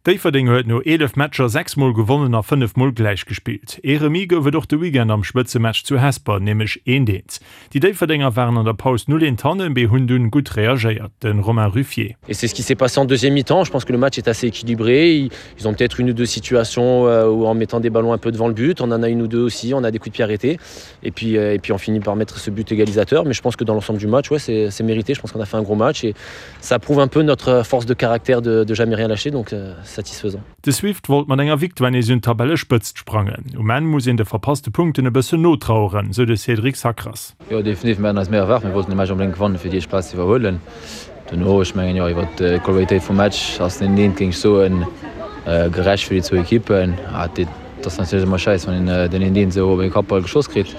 Déifferdeng huet no 11 Matcher 6 Mol gewonnen a 5 Mol gläich gespillt. Ee Remis gouf et och de Weekend am Spëtzematch zu Hesper, nämlech eent eent. Déi Déifferdenger waren an der Paus 0 eent hannen, mee hunn dunn gutt reagéiert. De Romain Ruffier. Et c'est ce qui s'est passé en deuxième mi-temps. Je pense que le match est assez équilibré. Ils ont peut-être une ou deux situations euh, où en mettant des ballons un peu devant le but, on en a une ou deux aussi, on a des coups de pied arrêtés. Et puis, euh, et puis on finit par mettre ce but égalisateur. Mais je pense que dans l'ensemble du match, ouais, c'est mérité. Je pense qu'on a fait un gros match et ça prouve un peu notre force de caractère de, de jamais rien lâcher, donc euh, satisfaisant. De Swift wollt mat enger Victoire nees un d'Tabellespëtzt sprangen. Um Enn muss een de verpasste Punkten e bëssen notraueren, sou de Cédric Sacras. Jo, definitiv. Mir haten eis méi erwaart. Mir wollten de Match onbedéngt gewannen, fir déi éischt Plaz ze iwwerhuelen. Dono, ech mengen, jo, iwwer d'Qualitéit vum Match ass den eent, géing ech soen, gerecht fir déi zwou Ekippen. Et ass natierlech ëmmer schäiss, wann een den eent eent esou op ee Kappball geschoss kritt.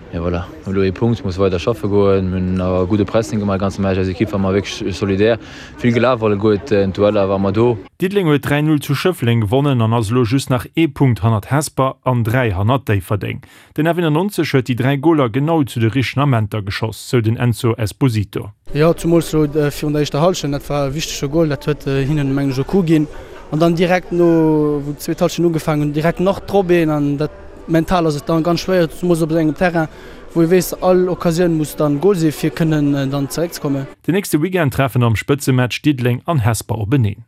Mee voilà, mir hu elo ee Punkt, musse weider schaffe goen. Mir hunn awer e gudde Pressing gemaach de ganze Match. Eis Ekipp war mar wierklech solidär, vill gelaf alleguerten. D'Dueller ware mer do. Diddeleng huet 3, 0 zu Schëffleng gewonnen an ass elo just nach ee Punkt hannert Hesper an 3 hannert Déifferdeng. Den F91 huet déi 3 Goler genau zu de richtegen Amenter geschoss, sou den Enzo Esposito. Jo, zumools elo virun der éischter Hallschent, dat war e wichtege Gol, dat huet hinnen mengen ech e Coup ginn. An dann direkt no wou d'zweet Hallschent ugefaangen hunn, direkt nach drop een an dat mental ass et dann ganz schwéier, zumools op esou engem Terrain, wou ee weess, all Occasioun muss dann Gol sinn, fir kënnen dann zeréckzekommen. Den nächste Weekend treffen am Spëtzematch Diddeleng an Hesper openeen.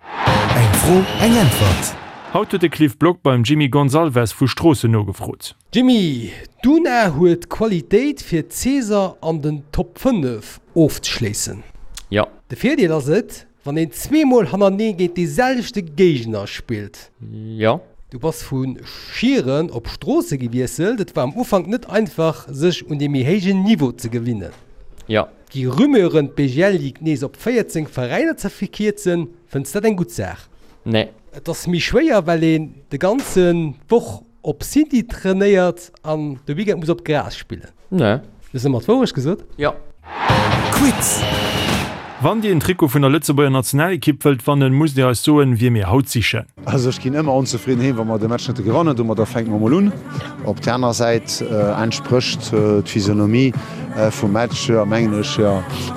Eng Fro, eng Äntwert! Haut huet de Cliff Block beim Jimmy Gonzalves vu Stroossen nogefrot. Jimmy, d'Una huet d'Qualitéit fir d'Saison an den Top 5 ofzeschléissen. Jo. De Virdeel ass et, Wann een zweemol hannerneeë géint dee selwechte Géigner spillt. Jo. Du bass vu Schieren op Stroosse gewiesselt. Et war am Ufank net einfach, sech un dee méi héijen Niveau ze gewinnen. Jo. Gi Rumeuren, d'BGL Ligue nees op 14 Veräiner ze verkierzen. Fënns dat eng gutt Saach? Nee. Et ass méi schwéier, well een de ganze Woch Op City trainéiert an de Weekend muss op Gras spillen. Nee. Hues ëmmer d'Wourecht gesot? Jo. Quiz! Wann Dir en Trikot vun der Lëtzebuerger Nationalekipp wëllt wannen, musst Dir eis soen, wie mir haut sichen. Also ech ginn ëmmer onzefridden heem, wa mer de Match net gewannen. Domadder fänke mer mol un. Op där aner Säit entsprécht d'Physionomie vum Match, mengen ech,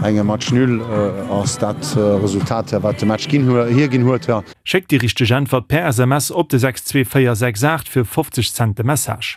engem Match nul ass dat Resultat, wat de Match hierginn huet. Schéckt déi richteg Äntwert per SMS op de 62468 fir 50 Cent de Message.